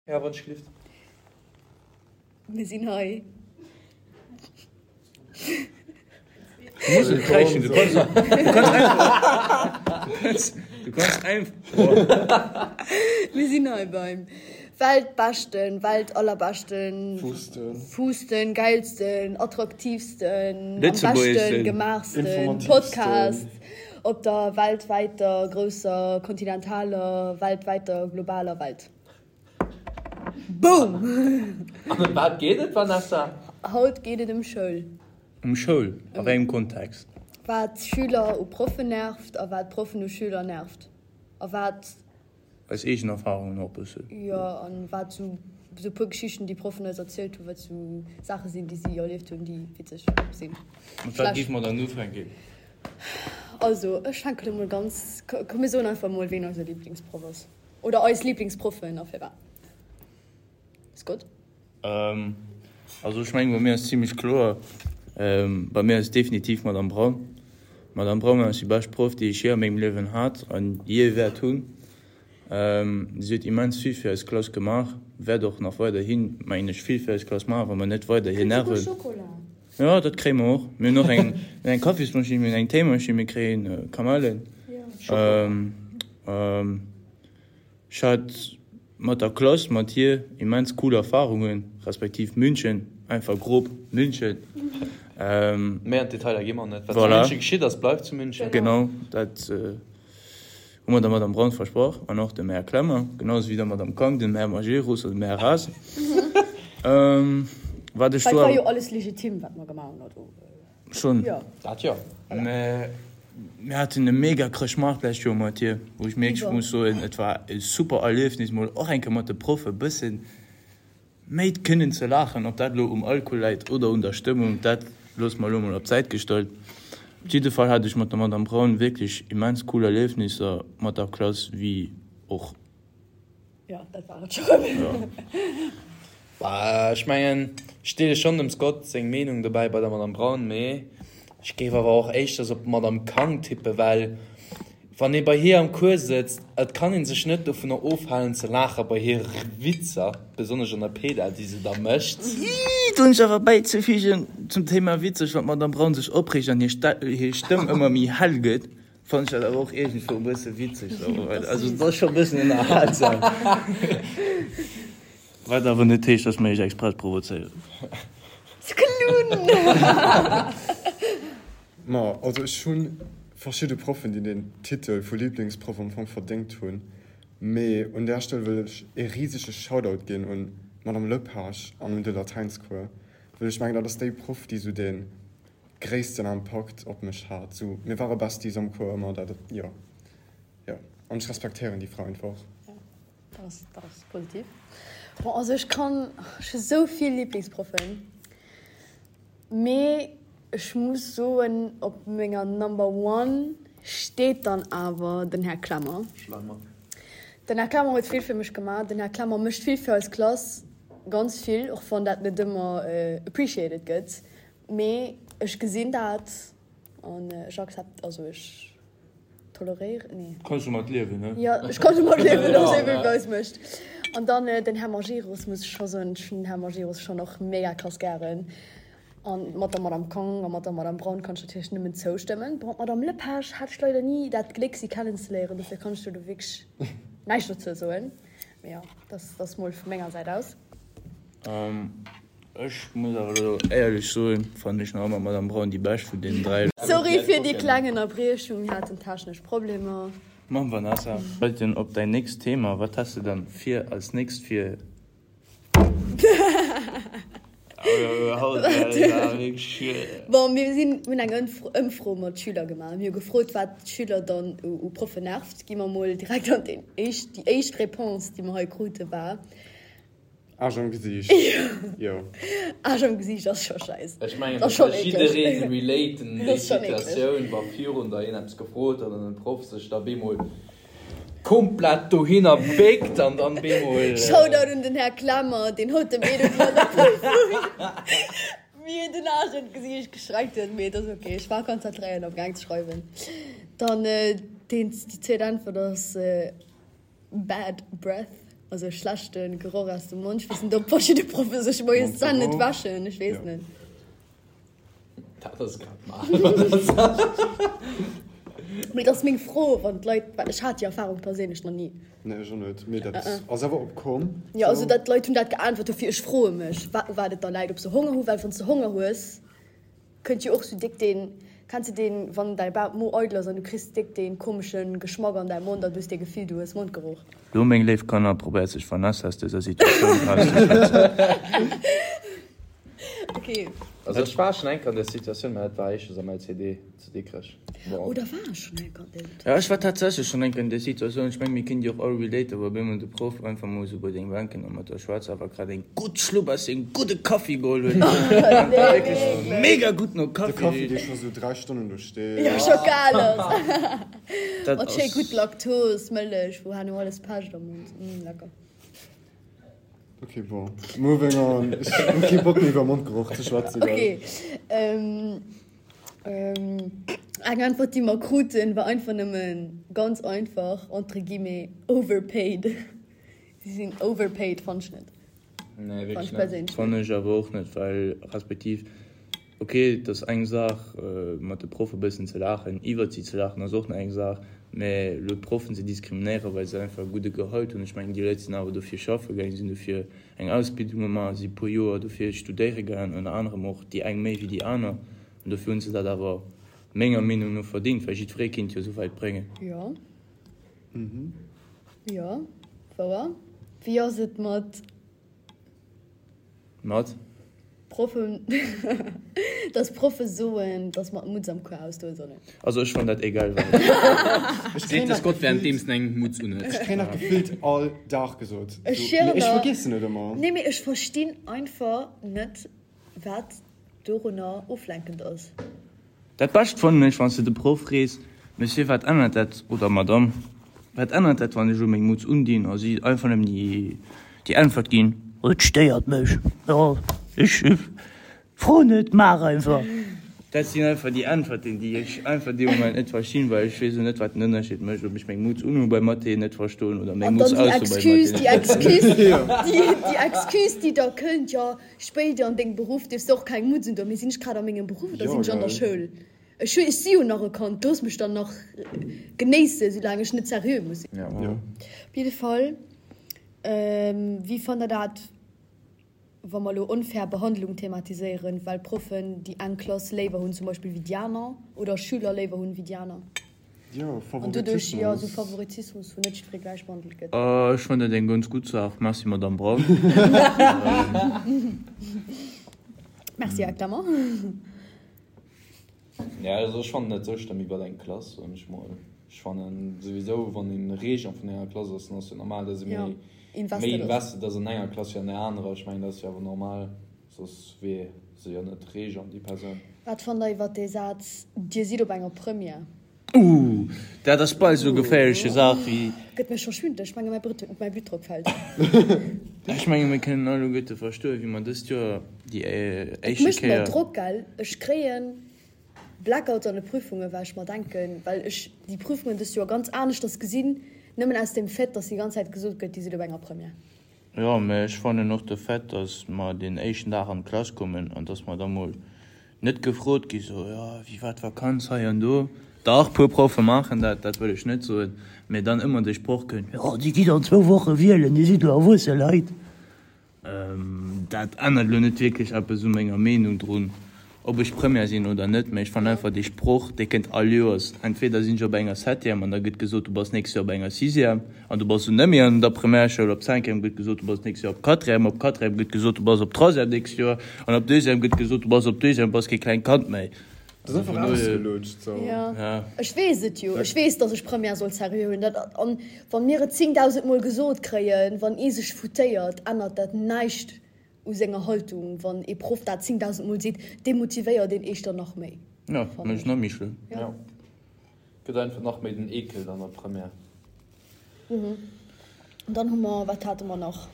Ja, wann ech gelift. Mir sinn hei. Du muss net kräischen, du kanns, du kanns einfach, du kanns, du kanns einfach. Mir sinn hei beim weltbeschten, weltallerbeschten, Fuusten. fuusten, geilsten, attraktiivsten, am beschten Lëtzebuergeschsten. gemaachsten Informatiivsten. Podcast op der weltwäiter, grousser, kontinentaler, weltwäiter, globaler Welt. Boom! An ëm wat geet et, Vanessa? Haut geet et ëm Schoul. Ëm Schoul? A wéi engem Kontext? Wat Schüler u Proffen nervt a wat Proffen u Schüler nervt. A wat. Eis eegen Erfarungen och e bëssen. Jo, an wat sou sou puer Geschichten, déi Proffen eis erzielt hunn, wat sou Saache sinn, déi si erlieft hunn, déi witzeg sinn. Mat wat géife mer dann ufänken? Also, ech fänken emol ganz, komm mir soen einfach emol, ween eise Liblingsproff ass. Oder eis Lieblingsproffen a firwat? Scott? Also ech mengen bei mir ass zimlech kloer, bei mir ass et definitiv d'Madame Braun. D'Madame Braun ass déi bescht Proff déi ech jee a mengem Liewen hat an jee wäert hunn. Si huet immens vill fir eis Klass gemaach, wäert och nach weiderhin mengen ech vill fir eis Klass maachen, wa mer net weider hir Nerven. Jo dat kréie mer och. Mir hunn och eng eng Kaffismaschinn, mir hunn eng Téimaschinn, mir kréien Kamellen. Ech hat mat der Klass, mat hir immens cool Erfahrungen, respektiv München, einfach grob München. Méi an d'Detailer gi mer net. Wat zu München geschitt ass, bleift zu München. Genau, dat hu mer der Madame Braun versprach an och dem Här Klemmer, genau esou wéi der Madame Kang, dem Här Majerus an dem Här Ras. Wat ech do. Dat war jo alles legitim, wat mer gemaach hunn, also. Schon. Jo. Dat jo. Mä mir haten e mega Chrëschtmaart d'lescht Joer mat hir, wou ech wierklech muss soen, et war e super Erliefnis, mol och eng Kéier mat de Proffe e bëssen méi kënnen ze laachen. Ob dat elo um Alkohol läit oder un der Stëmmung, dat loosse mer elo mol op d'Säit gestallt. Op jidde Fall hat ech mat der Madame Braun wierklech immens cool Erliefnisser mat der Klass, wéi och. Jo, dat war et scho rëm. Bah, ech mengen, ech deele schonn dem Scott seng Meenung dobäi bei der Madame Braun, mee ech géif awer och éischters op d'Madame Kang tippen, well wann ee bei hir am Cours sëtzt, et kann ee sech net dovunner ofhalen ze laache bei hire Witzer, besonnesch an der Peda, déi se da mécht. Ii, do hunn ech awer bäizefügen zum Thema witzeg, wann d'Madame Braun sech opreegt an hir Stëmm ëmmer méi hell gëtt, Fannen ech dat awer och iergendwou e bësse witzeg sou. Also et ass scho e bëssen ënnerhalsam. Wat awer net heescht, dass mer iech express provozéieren. Sklunn! Ma also ech hu verschidde Proffen, déi den Titel vu Liblingsproff am Fong verdéngt hunn, mee un där Stell wëll ech ee risege Shoutout ginn un d'Madame Lepage an un de Latäinscours, well ech mengen dat ass déi Proff, déi sou dee gréissten Impakt op mech hat. Sou, mir ware Besties am Cours ëmmer, dat, jo, jo. An ech respektéieren déi Fra einfach. Jo, dat ass, dat ass positiv. Bon, also ech kann, ech hu sou vill Liblingsproffen, mee ech muss soen, op menger Number one steet dann awer den Här Klemmer. Schlemmer. Den Här Klemmer huet vill fir mech gemaach. Den Här Klemmer mécht vill fir eis Klass, ganz vill, och wann dat net ëmmer appreciated gëtt. Mee ech gesinn dat an ech accept, also ech toleréieren, nee. Kanns domat liewen, ne? Jo, ech kann domat liewen, dass hie wéi eis mécht. An dann den Här Majerus, muss ech scho soen, ech hunn den Här Majerus schonn och mega krass gären. An mat der Madame Kang a mat der Madame Braun kann ech natierlech nëmmen zoustëmmen. Bon, d'Madame Lepage hat ech leider ni dat Gléck, si kennenzeléieren, dofir kann ech do do wierklech näischt dozou soen. Mee jo, dat ass mol vu menger Säit aus. Ech muss awer elo éierlech soen, fannen ech nach ëmmer d'Madame Braun déi bescht vun deenen 3. Sorry fir déi kleng Ënnerbriechung, mir haten technesch Problemer. Moin Vanessa, weiten op däin nächst Thema, wat häss de dann fir als nächst fir? Bon, mir sinn, mir hunn eng Ëmfro mat Schüler gemaach. Mir hu gefrot, wat d'Schüler dann u Proffen nervt. Gi mer mol direkt an déi éischt, déi éischt Réponse, déi mer hei krute war. Aarsch am Gesiicht, jo. Aarsch am Gesiicht ass scho scheiss. Ech mengen, dat ka jiddereen relaten, déi Situatioun, wa virun der een eppes gefrot huet an den Proff sech da bemol komplett dohinner béckt an dann bemol. Shoutout un den Här Klemmer, deen haut dem Edu an der Prüfung mir den Aarsch an d'Gesiicht gestreckt huet. Mee et ass ok, ech war konzentréiert am gaang ze schreiwen. Dann déi zweet Äntwert ass Bad Breath. Also schlechte Geroch aus dem Mond. Ech weess net, ob verschidde Proffe sech moies d'Zänn net wäschen. Ech weess net. Dat ass grad mal. Mee et ass meng Fro, wann d'Leit, well ech hat déi Erfarung perséinlech nach ni. Nee, ech och net. Mee dat ass awer opkomm. Jo, also dat d'Leit hunn dat geäntwert, dofir ech froe mech, wa u wat et da läit, ob se Honger hu, well wann s de Honger hues, kënnt jo och sou déck deen, kenns de deen, wann däi Ba Mo eidel ass an du kriss déck deen komesche Geschmack an däi Mond an du hues dee Gefill, du hues Mondgeroch. Lo, meng léif Kanner, probéiert sech Vanessa aus dëser Situatioun erauszeschwätzen. Ok. Also ech war schon eng Kéier an där Situatioun, mä dat war éischters am LCD zu Dikrech. Bon. Oder war ech schon eng Kéier an där Situatioun? Jo, ech war tatsächlech schon eng Kéier an där Situatioun. Ech mengen, mir kënnen déi och all relaten, wou op eemol de Proff einfach mol esou bei deng Bänken a mat der schwätzt, awer grad eng gutt Schlupp aus sengem gudde Kaffi geholl huet, Nee, wierklech wierklech. mega gutt no De Kaffi Kaffi, richt. dee scho sou 3 Stonnen do steet. Jo, scho kal ass. Dat Mat schéi ass. gutt Laktos, Mëllech, wou herno alles pecht am Mond. Mm, lecker. Ok, bon, moving on. Ech hu kee Bock méi iwwer Mondgeroch ze schwätzen, gell. Ok, ähm, eng Äntwert déi mer kruten war einfach nëmmen ganz einfach, entre guillemets, overpaid. Si sinn overpaid, fannt ech net. Nee, Fannt wierklech ech net. perséinlech net. Fannen ech awer och net, well respektiv, ok, et ass eng Saach mat de Proffe bëssen ze laachen, iwwert si ze laachen ass och nach eng Saach, mä elo d'Proffen ze diskriminéieren, well se einfach e gudde Gehalt hunn, ech mengen déi Leit sinn awer dofir schaffe gaangen, sinn dofir eng Ausbildung gemaach, si puer Joer dofir studéiere gaangen, ënner anerem och déi eng méi wéi déi aner, an dofir hunn se dat awer menger Meenung no verdéngt, well jiddweree kinnt jo esou wäit bréngen. Jo. Jo, wouer. Wéi ass et mat. Mat? Proffen, dass Proffe soen, dass mer d'Mutz am Cours ausdoe sollen. Also ech fann dat egal wat. Seet de Scott währenddeems en eng Mutz unhuet. Ech kréien dat gefillt all Dag gesot. Ech Mee schwören ech der. vergiessen et ëmmer. Nee, mee ech verstinn einfach net, wat dorunner oflenkend ass. Dat Bescht fannen ech, wann s de de Proff frees, Monsieur, wat ännert dat, oder Madame, wat ännert dat, wann ech elo meng Mutz undinn? A si einfach nëmmen déi Äntwert ginn, Et stéiert mech, jo, ech fro net, maach einfach. Dat sinn einfach déi Äntwerten, déi ech einfach dee Moment net verstinn, well ech weess elo net, wat den Ënnerscheed mécht, ob ech meng Mutz unhu bei Mathé net verstoen oder meng An Mutz dann déi aus hu bei Excuse, Mathé déi net verstoen. Excuse, déi Excuse, déi da kënnt, jo, Spéider an dengem Beruff dierfs de och keng Mutz undoen. Mee sinn ech grad a mengem Beruff oder sinn ech an der Schoul? Ech hu, ech si jo nach e Kand, looss mech dann nach genéissen, soulaang ech net seriö muss sinn. Op jidde Fall, wéi fannt der dat, wa mer elo onfair Behandlung thematiséieren, well Proffen déi eng Klass léiwer hunn zum Beispill wéi déi aner oder Schüler léiwer hunn wéi déi aner? Jo, An doduerch, jo, esou Favoritismus. Favoritismus, wou net jiddweree gläich behandelt gëtt. Ech fannen dat eng ganz gutt Saach. Merci, Madamm Braun. Merci, Här Clement. Ja, also ech fannen dat sou schlëmm iwwer eng Klass, soen ech mol. Ech fannen souwisou, wann een Régent vun enger Klass ass, dann ass jo normal, dass ee Ja, méi, méi invested ass. invested ass an enger Klass wéi an der anerer. Ech mengen, dat ass jo awer normal, soss wier se jo net Régent, déi Persoun. Wat fannt der iwwer dee Saz, Dir sidd op enger Première? Ooh, dat ass bal esou geféierleche Saach wéi. Gëtt mir scho schwindeleg, ech menge mäi Bluttdrock fält. Ech menge mir kënnen alleguerte verstoen, wéi mer dëst Joer déi Et éischte mécht mer Kéier. Drock, gell. Ech kréie Blackouts an de Prüfungen, well ech mer denken, well ech déi Prüfungen dëst Joer ganz aneschters gesinn, nëmmen aus dem Fait, dass déi ganz Zäit gesot gëtt, Dir sidd op enger Première. Jo, mä ech fannen och de Fait, dass mer deen éischten Dag an d'Klass kommen an dass mer da mol net gefrot gi sou, jo, wéi war d'Vakanz hei an do. Dach, puer Proffe maachen dat, dat wëll ech net soen, mä dann ëmmer de Sproch kënnt, jo, Dir gitt an zwou Woche wielen, Dir sidd elo erwuesse Leit. Dat ännert elo net wierklech eppes u menger Meenung drun, ob ech Première sinn oder net, mä ech fannen einfach dee Sproch, dee kënnt all Joers. Entweder sinn ech op enger Septième an da gëtt gesot, du bass nächst Joer op enger Sixième an du bass dunn net méi an der Primärschoul, op Cinquième gëtt gesot, du bass nächst Joer op Quatrième, op Quatrième gëtt gesot, du bass op Troisième nächst Joer an op Deuxième gëtt gesot, du bass op Deuxième, bass kee klengt Kand méi. Dat ass einfach ausgelutscht sou. Jo, ech weess et jo. Ech weess, datt ech Première soll seriö huelen. Dat, an wa mir et 10.000 Mol gesot kréien, wann ee sech foutéiert, ännert dat näischt u senger Haltung. Wann ee Proff dat 10.000 Mol seet, demotivéiert een éischter nach méi. Jo, mécht nach méi schlëmm. Jo, gëtt einfach nach méi den Eekel an der Première. An dann hu mer, wat hate mer nach?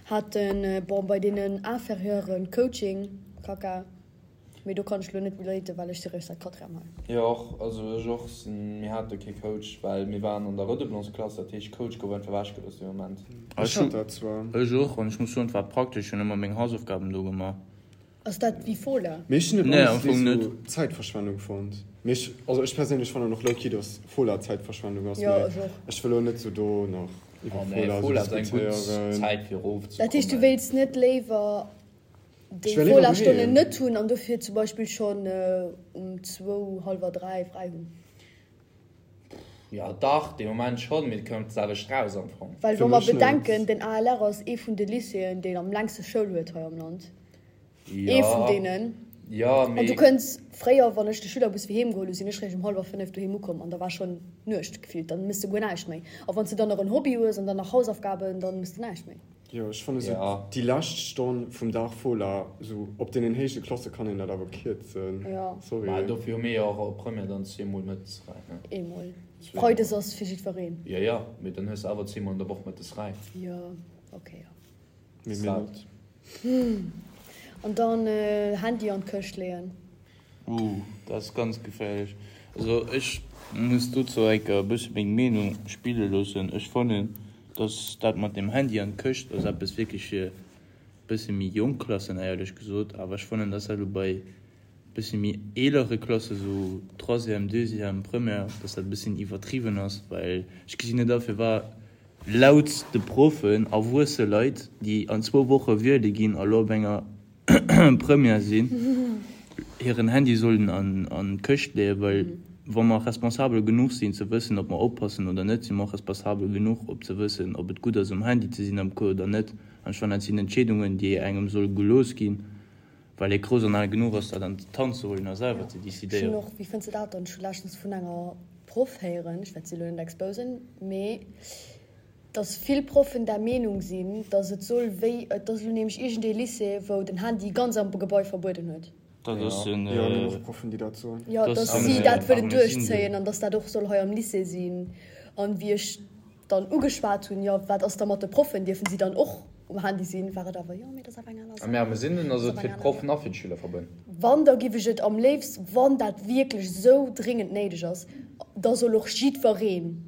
Haten, bon, bei deenen Inférieuren Coaching, Kaka. Mee do kann ech lo net relaten, well ech si réischt säit Quatrième hei. Jo och, also ech och sinn, mir hate kee Coach, well mir waren an der Redoublance-Klass, dat heescht Coach gouf einfach ewechgelooss dee Moment. Ech hat dat zwar. Ech och, an ech muss soen, et war praktesch, ech hunn ëmmer meng Hausaufgaben do gemaach. Ass dat wéi Fola? Mee ech hunn et Nee, am honestly Fong net. sou Zäitverschwendung fonnt. Mee ech, also ech perséinlech fannen och low-key, dass Fola Zäitverschwendung ass, Jo, mee ech och. ech wëll elo net sou do nach iwwer Oh nee, Fola sou Fola ass eng gutt diskutéieren. Zäit fir Dat heescht, du erofzekommen. wéilts net léiwer déi Ech wär léiwer Fola-Stonnen doheem. net hunn an dofir zum Beispill schonn um zwou, hallwer 3 fräi hunn? Jo dach, dee Moment schonn, mee et kënnt d'selwecht raus am Fong. Well Fir wa mer mech net. bedenken, den ALR ass ee vun de Lycéeën, deen am längste Schoul huet hei am Land. Ee vun Jo, deenen. jo, An du mee. kënns, fréier, wann ech de Schülerbus fir heem geholl hu, sinn ech réischt um hallwer 5 doheem ukomm an da war schonn Nuecht gefillt. Dann mëss de guer näischt méi. A wann s de dann nach en Hobby hues an dann nach Hausaufgaben, dann mëss de näischt méi. Jo, ech fanne sou Ja. déi lescht Stonn vum Dag Fola, sou op deenen héije Klasse kann een dat awer kierzen. Ja. Mä Sorry. dofir hu mir jo och op Première dann zweemol mëttes fräi, ne? Eemol. Zweemol. Freides ass fir jiddwereen. Jo, jo, mee dann hues de awer zweemol an der Woch mëttes fräi. Jo, okay, jo. Mee mir net. An dann Handy an d'Këscht leeën. Ooh, dat ass ganz geféierlech. Also ech muss dozou enker e bësse meng Meenung spille loossen. Ech fannen, dass dat mat dem Handy an d'Këscht ass eppes wierklech fir bësse méi jonk Klassen, éierlech gesot. Awer ech fannen, dass dat elo bei bësse méi eelere Klasse, sou Troisième, Deuxième, Première, dass dat e bëssen iwwertriwwen ass, well ech gesinn net a firwat laut de Proffen erwuesse Leit, déi an zwou Woche wiele ginn a lo op enger Première sinn, hiren Handy sollen an d'Këscht leeën, well wa mer responsabel genuch sinn ze wëssen, ob mer oppassen oder net, si mer och responsabel genuch op ze wëssen, ob et gutt ass um Handy ze sinn am Cours oder net. An ech fannen, dat sinn Entscheedungen, déi engem solle gelooss ginn, well ee grouss an al genuch ass, dat an d'Hand ze huelen a selwer ze Ech hunn decidéieren. och, wéi fënns de dat dann, ech hu leschtens vun enger Proff héieren, ech wäert si elo net exposen, mee dass vill Proffen der Meenung sinn, dass et soll wéi, et ass elo nämlech iergendee Lycée, wou den Handy ganz am Gebai verbueden huet. Dat ass den. Jo, mir hunn och Proffen, déi dat soen. Jo, dass si dat wëllen duerchzéien an dass dat och soll hei am Lycée sinn. An wéi ech dann ugeschwat hunn, jo, wat ass da mat de Proffen, dierfen si dann och um Handy sinn, war et awer, jo, mee dat ass awer eng aner Saach. Mä am Sinn ass et fir d'Proffen a fir d'Schüler verbueden. Wann, da giff ech et am léifst, wann dat wierklech esou dringend néideg ass, da soll och jiddwereen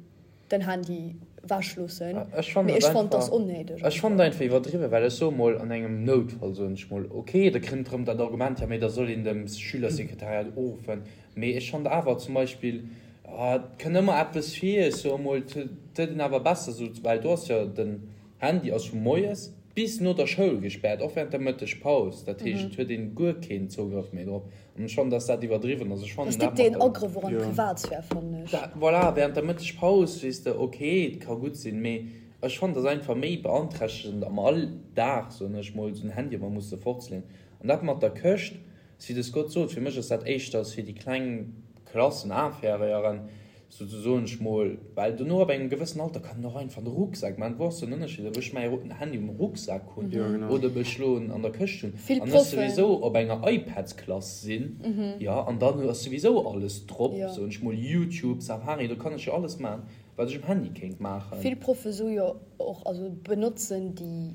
den Handy wech loossen, Ech fannen mee et ech fannen, et ass einfach, onnéideg ech fannen et einfach iwwerdriwwen, well ech soe mol, an engem Noutfall, soen ech mol, ok, da kënnt erëm dat Argument, jo mee da soll een dem Schülersekretariat uruffen, mee ech fannen awer zum Beispill, et kënnt ëmmer eppes vir, ech soe mol, et huet een awer besser esou, well do ass jo den Handy ass vu moies bis no der Schoul gespäert, och während der Mëttegpaus, dat heescht, et huet een guer keen Zougrëff méi drop. An ech fannen, dass dat iwwerdriwwen ass. Ech Dat fannen ass dat déck mat deen der. Agrëff och an d'Privatsphär, fannen ech. Dat, voilà, während der Mëttegpaus, weess de, ok, et ka gutt sinn, mee ech fannen, dass einfach méi beanträchtegend am Alldag, soen ech mol, esou en Handy ëmmer musse fortzeleeën. An dat mat der Këscht, wéi de Scott sot, fir mech ass dat éischters fir déi kleng Klassen, Inférieuren, Souzesoen ech mol, well dono ab engem gewëssen Alter kann en och einfach de Rucksak man, wou ass den Ënnerscheed ob ech mäi Handy um Rucksak hunn oder ob ech lo en an der Këscht hunn Vill an ech Proffen. souwisou op enger iPadsklass sinn, jo, an dann ass souwisou alles drop, soen ech mol, YouTube, Safari, do kann ech jo alles man, wat ech um Handy kéint maachen. Vill Proffe soe jo och, also benotzen déi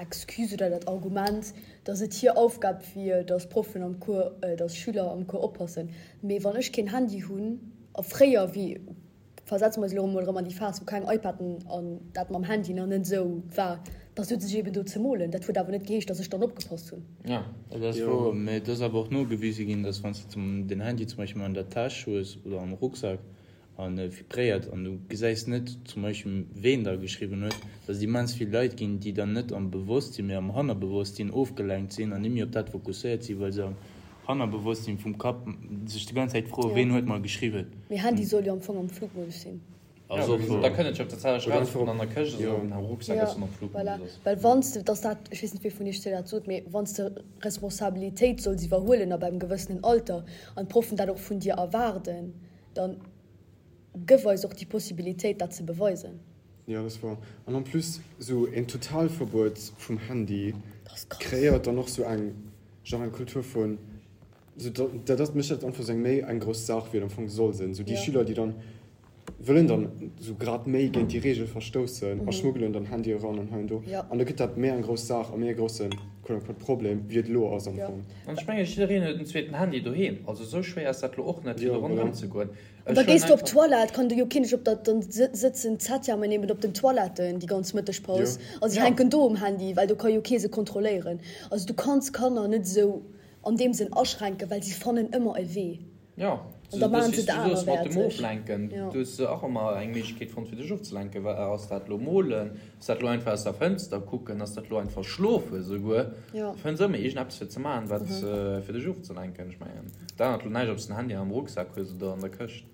Excuse oder dat Argument, dass et hir Aufgab wier, dass Proffen am Cours, dass Schüler am Cours oppassen. Mee wann ech keen Handy hunn, a fréier, wéi, versetze mer eis elo emol erëm an déi Phas, wou keng iPaden an dat mam Handy nach net esou war, da souz ech eben do ze molen. Dat huet awer net geheescht, dass ech dann opgepasst hunn. Jo, dat ass wouer. Mee et ass awer och nogewise ginn, dass wann s de den Handy zum Beispill an der Täsch hues oder am Rucksak, a vibréiert an du gesäis net zum Beispill ween da geschriwwen huet, dass et immens vill Leit ginn, déi dann net am Bewosstsinn, mee am Hannerbewosstsinn ofgelenkt sinn an net méi op dat fokusséiert sinn, well se am Hannerbewosstsinn vum Kapp sech déi ganz Zäit froen, ween huet mer geschriwwen. Mee Handy soll jo am Fong am Flugmodus sinn. Ass och wouer. Da kënnt et jo op der Zäit eraus, ob en an der Këscht ass oder ob en am Rucksak ass an am Voilà, Flugmodus ass. well wann s de, dass dat, ech weess net wee vun iech zwee dat sot, mee wann s de Responsabilitéit solls iwwerhuelen ab engem gewëssenen Alter an d'Proffen dat och vun dir erwaarden, Dann gëff eis och déi Possibilitéit, dat ze beweisen. Jo, dat ass wouer. An en plus, esou een Totalverbuet vum Handy kreéiert dann och esou eng, genre eng Kultur vun, esou dat ass, mécht dat einfach esou eng méi eng grouss Saach, wéi et am Fong soll sinn. Esou déi Schüler, déi dann. wëllen dann esou grad méi géint déi Reegel verstoussen a schmuggelen dann Handye eran an hei an do. An da gëtt dat méi eng grouss Saach a méi e grousse quote unquote Problem, wéi et elo ass am Fong. An ech mengen, jiddereen huet en zweeten Handy doheem. Also esou schwéier ass dat elo och net, fir do ronderëm ze goen. An da gees du op d'Toilette, kann do jo keen dech op der, dann sëtzen d'Septièmen eben op den Toiletten déi ganz Mëttegpaus a si hänken do um Handy, well do ka jo kee se kontrolléieren. Also du kanns Kanner net esou an deem Sënn aschränken, well si fannen ëmmer e Wee. Jo, An da maachen se et du soos mat dem anerwäerteg. Oflenken, Jo. du hues och ëmmer eng Méiglechkeet fonnt fir dech ofzelenken. Wa ass dat lo molen, ass dat lo einfach aus der Fënster kucken, ass dat lo einfach schlofen esouguer. Jo. Du fënns ëmmer iergendeppes fir ze maachen, wat fir dech ofzelenken. Ech mengen, dat ännert lo näischt, ob s de den Handy am Rucksak hues oder an der Këscht.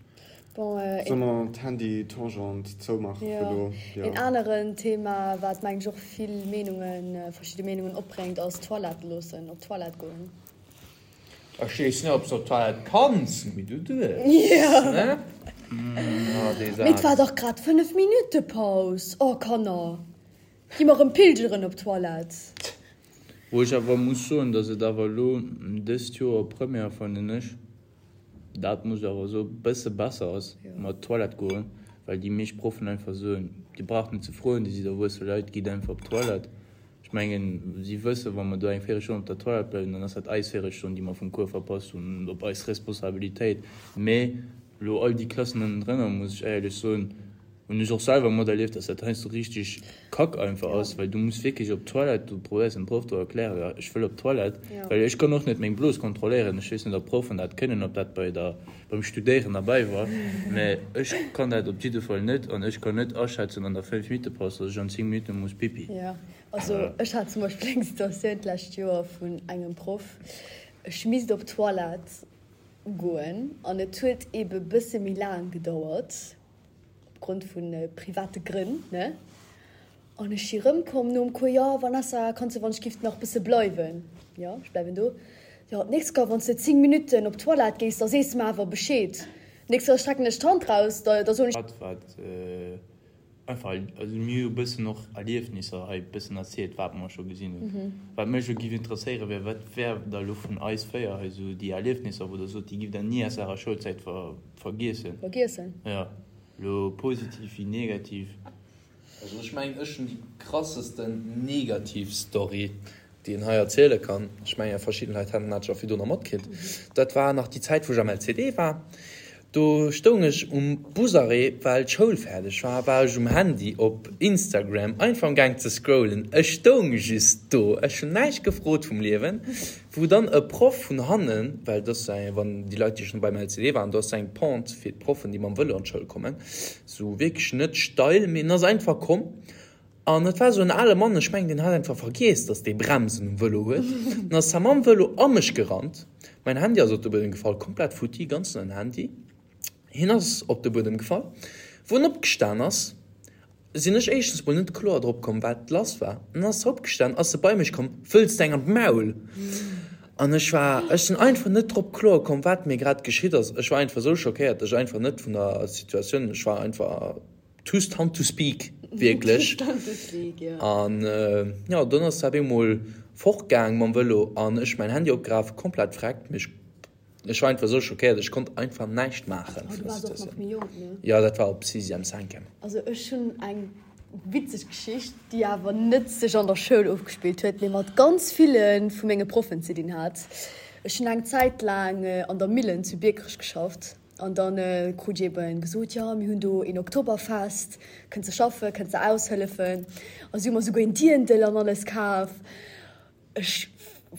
Bon, Solle een. mer d'Handy-Tangent zoumaachen fir Jo. elo? Jo. Een aneren Thema, wat mengen ech och vill Meenungen, verschidde Meenungen opbréngt, ass Toilette loossen, op d'Toilette goen. Ech weess net ob s de op d'Toilette kanns, mee du duerfs, ne? Ah, dee Mee et war Saz. dach grad 5 Minutte Paus. Oh Kanner, gi mer rëm pilgeren op d'Toilette. Wou ech awer muss soen, dass et awer elo dëst Joer Première, fannen ech, dat muss ech awer soen, bësse besser ass mat Toilette goen, well déi meescht Proffen einfach soen, Dir braucht net ze froen, Dir sidd erwuesse Leit, gitt einfach op d'Toilette. Ech mengen, si wëssen, wa mer do eng Véirelstonn op der Toilette bleiwen, dann ass dat eis Véirelstonn, déi mer vum Cours verpasst hunn, op eis Responsabilitéit. Mee elo all déi Klassen ënnendrënner, muss ech éierlech soen, hunn ech och selwer materlieft, dass dat heiansdo richteg kack einfach ass, well du muss wierklech op d'Toilette, du probéiers dem Proff do erklären, jo, ech wëll op d'Toilette, well ech kann och net meng Blos kontrolléieren. Ech weess net, ob d'Proffen dat kënnen, ob dat bei der, beim Studéieren derbäi war, mä ech kann dat op jidde Fall net an ech kann net aschätzen an der 5 Minutte Paus, dass ech an 10 Minutte muss Pipi. Jo, also ech hat zum Beispill eng Situatioun d'lescht Joer vun engem Proff, ech misst op d'Toilette goen an et huet ebe bësse méi laang gedauert opgrond vu private Grënn, ne? An ech si rëmkomm nom Cours, Jo, Vanessa, kanns de wann ech giff nach bësse bleiwen? Jo, ech bleiwen do. Jo, d'nächst Kéier, wann s de 10 Minutten op d'Toilette gees, da sees de mer awer Bescheed. D'nächst Kéier strecken ech d'Hand raus, da da soen ech. Dat wat einfach, also mir hu bëssen och Erliefnisser hei bëssen erzielt, wat mer scho gesinn hunn. Wat mech elo giff interesséiere wär, wat wär da elo vun eis 4 hei esou déi Erliefnisser, wou der sot, déi giff der ni aus ärer Schoulzäit vergiessen? Vergiessen? Jo, elo positiv wéi negativ. Also ech mengen ech hunn déi krassesten negativ Story déi een hei erziele kann. Ech mengen verschidden Leit haten dat scho virdrunner matkritt. Dat war nach déi Zäit wou ech am LCD war. Do stoung ech um Busarrêt well d'Schoul fäerdeg war, war ech um Handy op Instagram einfach am gaang ze scrollen. Ech stoung just do, ech hunn näischt gefrot vum Liewen, wou dann e Proff vun hannen, well et ass wann déi Leit déi schonn beim LCD waren, do ass eng Pente fir d'Proffen déi mam Vëlo an d'Schoul kommen, Sou wierklech net steil, mee en ass einfach komm an et war sou en ale Mann, ech mengen deen hat einfach vergiess, dass dee Bremsen um Vëlo huet. Dann ass hie mam Vëlo a mech gerannt, mäin Handy ass op de Buedem gefall, komplett futti, ganz neien Handy. Hien ass op de Buedem gefall. Wou en opgestan ass, sinn ech éischtens mol net kloer drop komm, wat lass war. Dann ass e opgestan, ass e bei mech komm, Wëlls de eng an d'Maul? An ech war, ech sinn einfach net drop kloer komm, wat mir grad geschitt ass. Ech war einfach esou schockéiert, ech einfach net vun der Situatioun, ech war einfach too stunned to speak, wierklech. An jo, dunn ass se op eemol fortgaang mam Vëlo an ech mäin Handy opgeraf, komplett vreckt, mee ech, ech war einfach esou schockéiert, ech konnt einfach näischt maachen vun der Situatioun. Jo, dat war op Sixième, Cinquième. Also ech hunn eng Witzeg Geschicht, déi awer net sech an der Schoul ofgespillt huet, mee mat ganz ville vu menge Proffen ze dinn hat. Ech hunn eng Zäit laang an der Millen zu Biekerech geschafft an da krut ech eben gesot, jo mir hunn do een Oktoberfest, kënns de schaffen, kënns de aushëllefen. A si hu mer souguer een Dirndl an alles kaf. Ech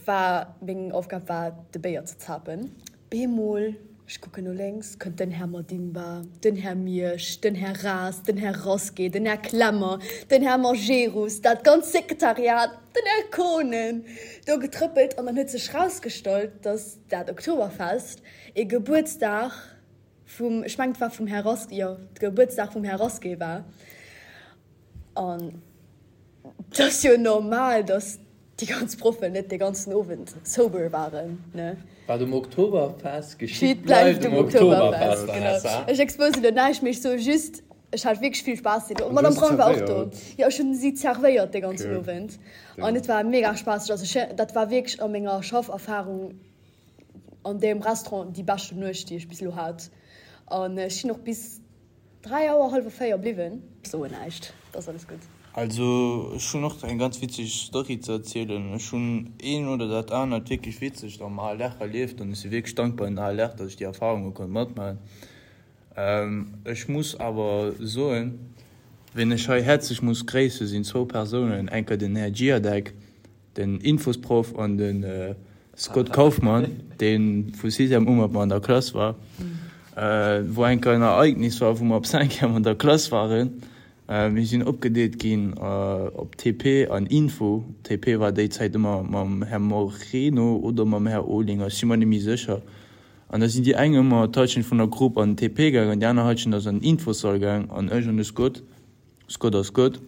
war, meng Aufgab war de Béier ze zapen. Bemol, ech kucken no lénks, kënnt den Här Madimba, den Här Miersch, den Här Ras, den Här Rasqué, den Här Klemmer, den Här Majerus, dat ganzt Sekretariat, den Här Kohnen do getrëppelt an dann huet sech rausgestallt, dass dat Oktoberfest ee Gebuertsdag vum, ech mengen et war vum Här Rasqué, jo, de Gebuertsdag vum Här Rasqué war. An et ass jo normal, dass déi ganz Proffen net dee ganzen Owend sober waren, ne? Wat um Oktoberfest geschitt, bleift um Oktoberfest, genau. Ech exposen elo näischt, mee ech soe just, ech hat wierklech vill Spaass deen Owend. D'Madame Braun war och do. Jo, ech hunn si zerwéiert dee ganzen Owend an et war mega spaasseg. Also ech, dat war wierklech a menger Schafferfarung an deem Restaurant déi beschten Nuecht, déi ech bis elo hat. An ech sinn och bis. 3 Auer, hallwer 4 bliwwen. Soen näischt, et ass alles gutt. Also ech hunn och eng ganz witzeg Story ze erzielen. Ech hunn een oder dat anert wierklech witzegt am ALR erlieft an ech si wierklech dankbar un den ALR, datt ech déi Erfarunge konnt matmaachen. Ech muss awer soen, wien ech hei häerzlech muss gréissen, sinn zwou Persounen, enker den Här Giadec, den Infosproff an de Scott Kaufmann, dee vu Sixième u mat mer an der Klass war, wou enker en Ereignis war, wou mer op Cinquième an der Klass waren. Mir sinn opgedeelt ginn op TP an Info. TP war déi Zäit ëmmer mam Här Moreno oder mam Här Olinger, ech si mer net méi sécher. An da sinn déi eng ëmmer d'Halschent vun der Grupp an den TP gaangen, déi aner Halschent ass an den Infosall gaang an ech an de Scott, Scott ass Scott,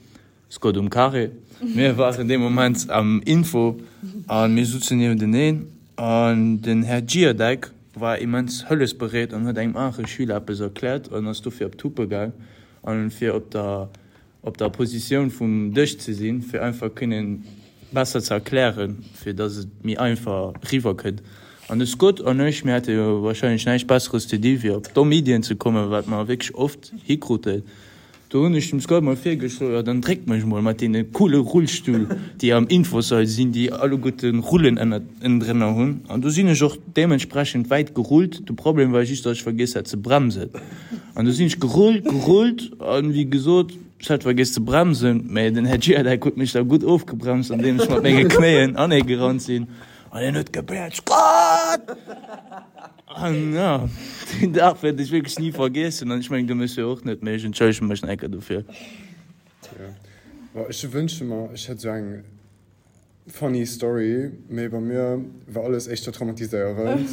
Scott um Carré. Mir waren dee Moment am Info a mir sutzen niewenteneen an den Här Giadec war immens hëllefsbereet an huet engem anere Schüler eppes erkläert an ass dofir op d'Huppe gaang an fir op der op der Positioun vum Dësch ze sinn, fir einfach kënnen besser ze erklären, fir dass et méi einfach riwwer kënnt. An de Scott an ech, mir hate jo wahrscheinlech näischt Besseres ze di wéi op domm Iddien ze kommen, wat mer wierklech oft hikruten. Do hunn ech dem Scott mol virgeschloen, jo dann dréck mech mol mat deene coole Rullstull, déi am Infosall sinn, déi alleguerte Rullen ënnendrënner hunn. An do sinn ech och deementsprechend wäit gerullt. De Problem war just, datt ech vergiess hat ze bremsen. An do sinn ech gerullt, gerullt an, wéi gesot, ech hat vergiess ze bremsen, mä den Här Giadec huet mech da gutt ofgebremst, andeem ech mat menge Knéien aneegerannt sinn an hien huet gebellt, Scott! An jo, deen Dag wäert ech wierklech ni vergiessen. An ech mengen, de Monsieur och net, mee ech entschëllege mech nach eng Kéier dofir. Jo, bon, ech wënschte mer, ech hätt esou eng funny Story, mee bei mir war alles éischter traumatiséierend.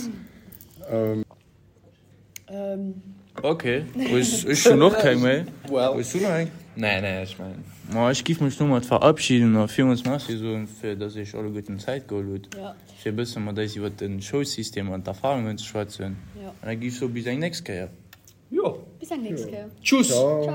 Ok, ech hunn och keng méi. Hues du nach eng? Nee, nee, ech mengen. Ma ech giff mech domat verabschieden a villmools Merci soen, fir dass Iech alleguerten Zäit geholl hutt. Fir e bësse mat eis iwwert de Schoulsystem an d'Erfahrungen ze schwätzen. An da gi ech soe bis eng nächst Kéier. Jo. Bis eng nächst Kéier. Tschüss. Ciao.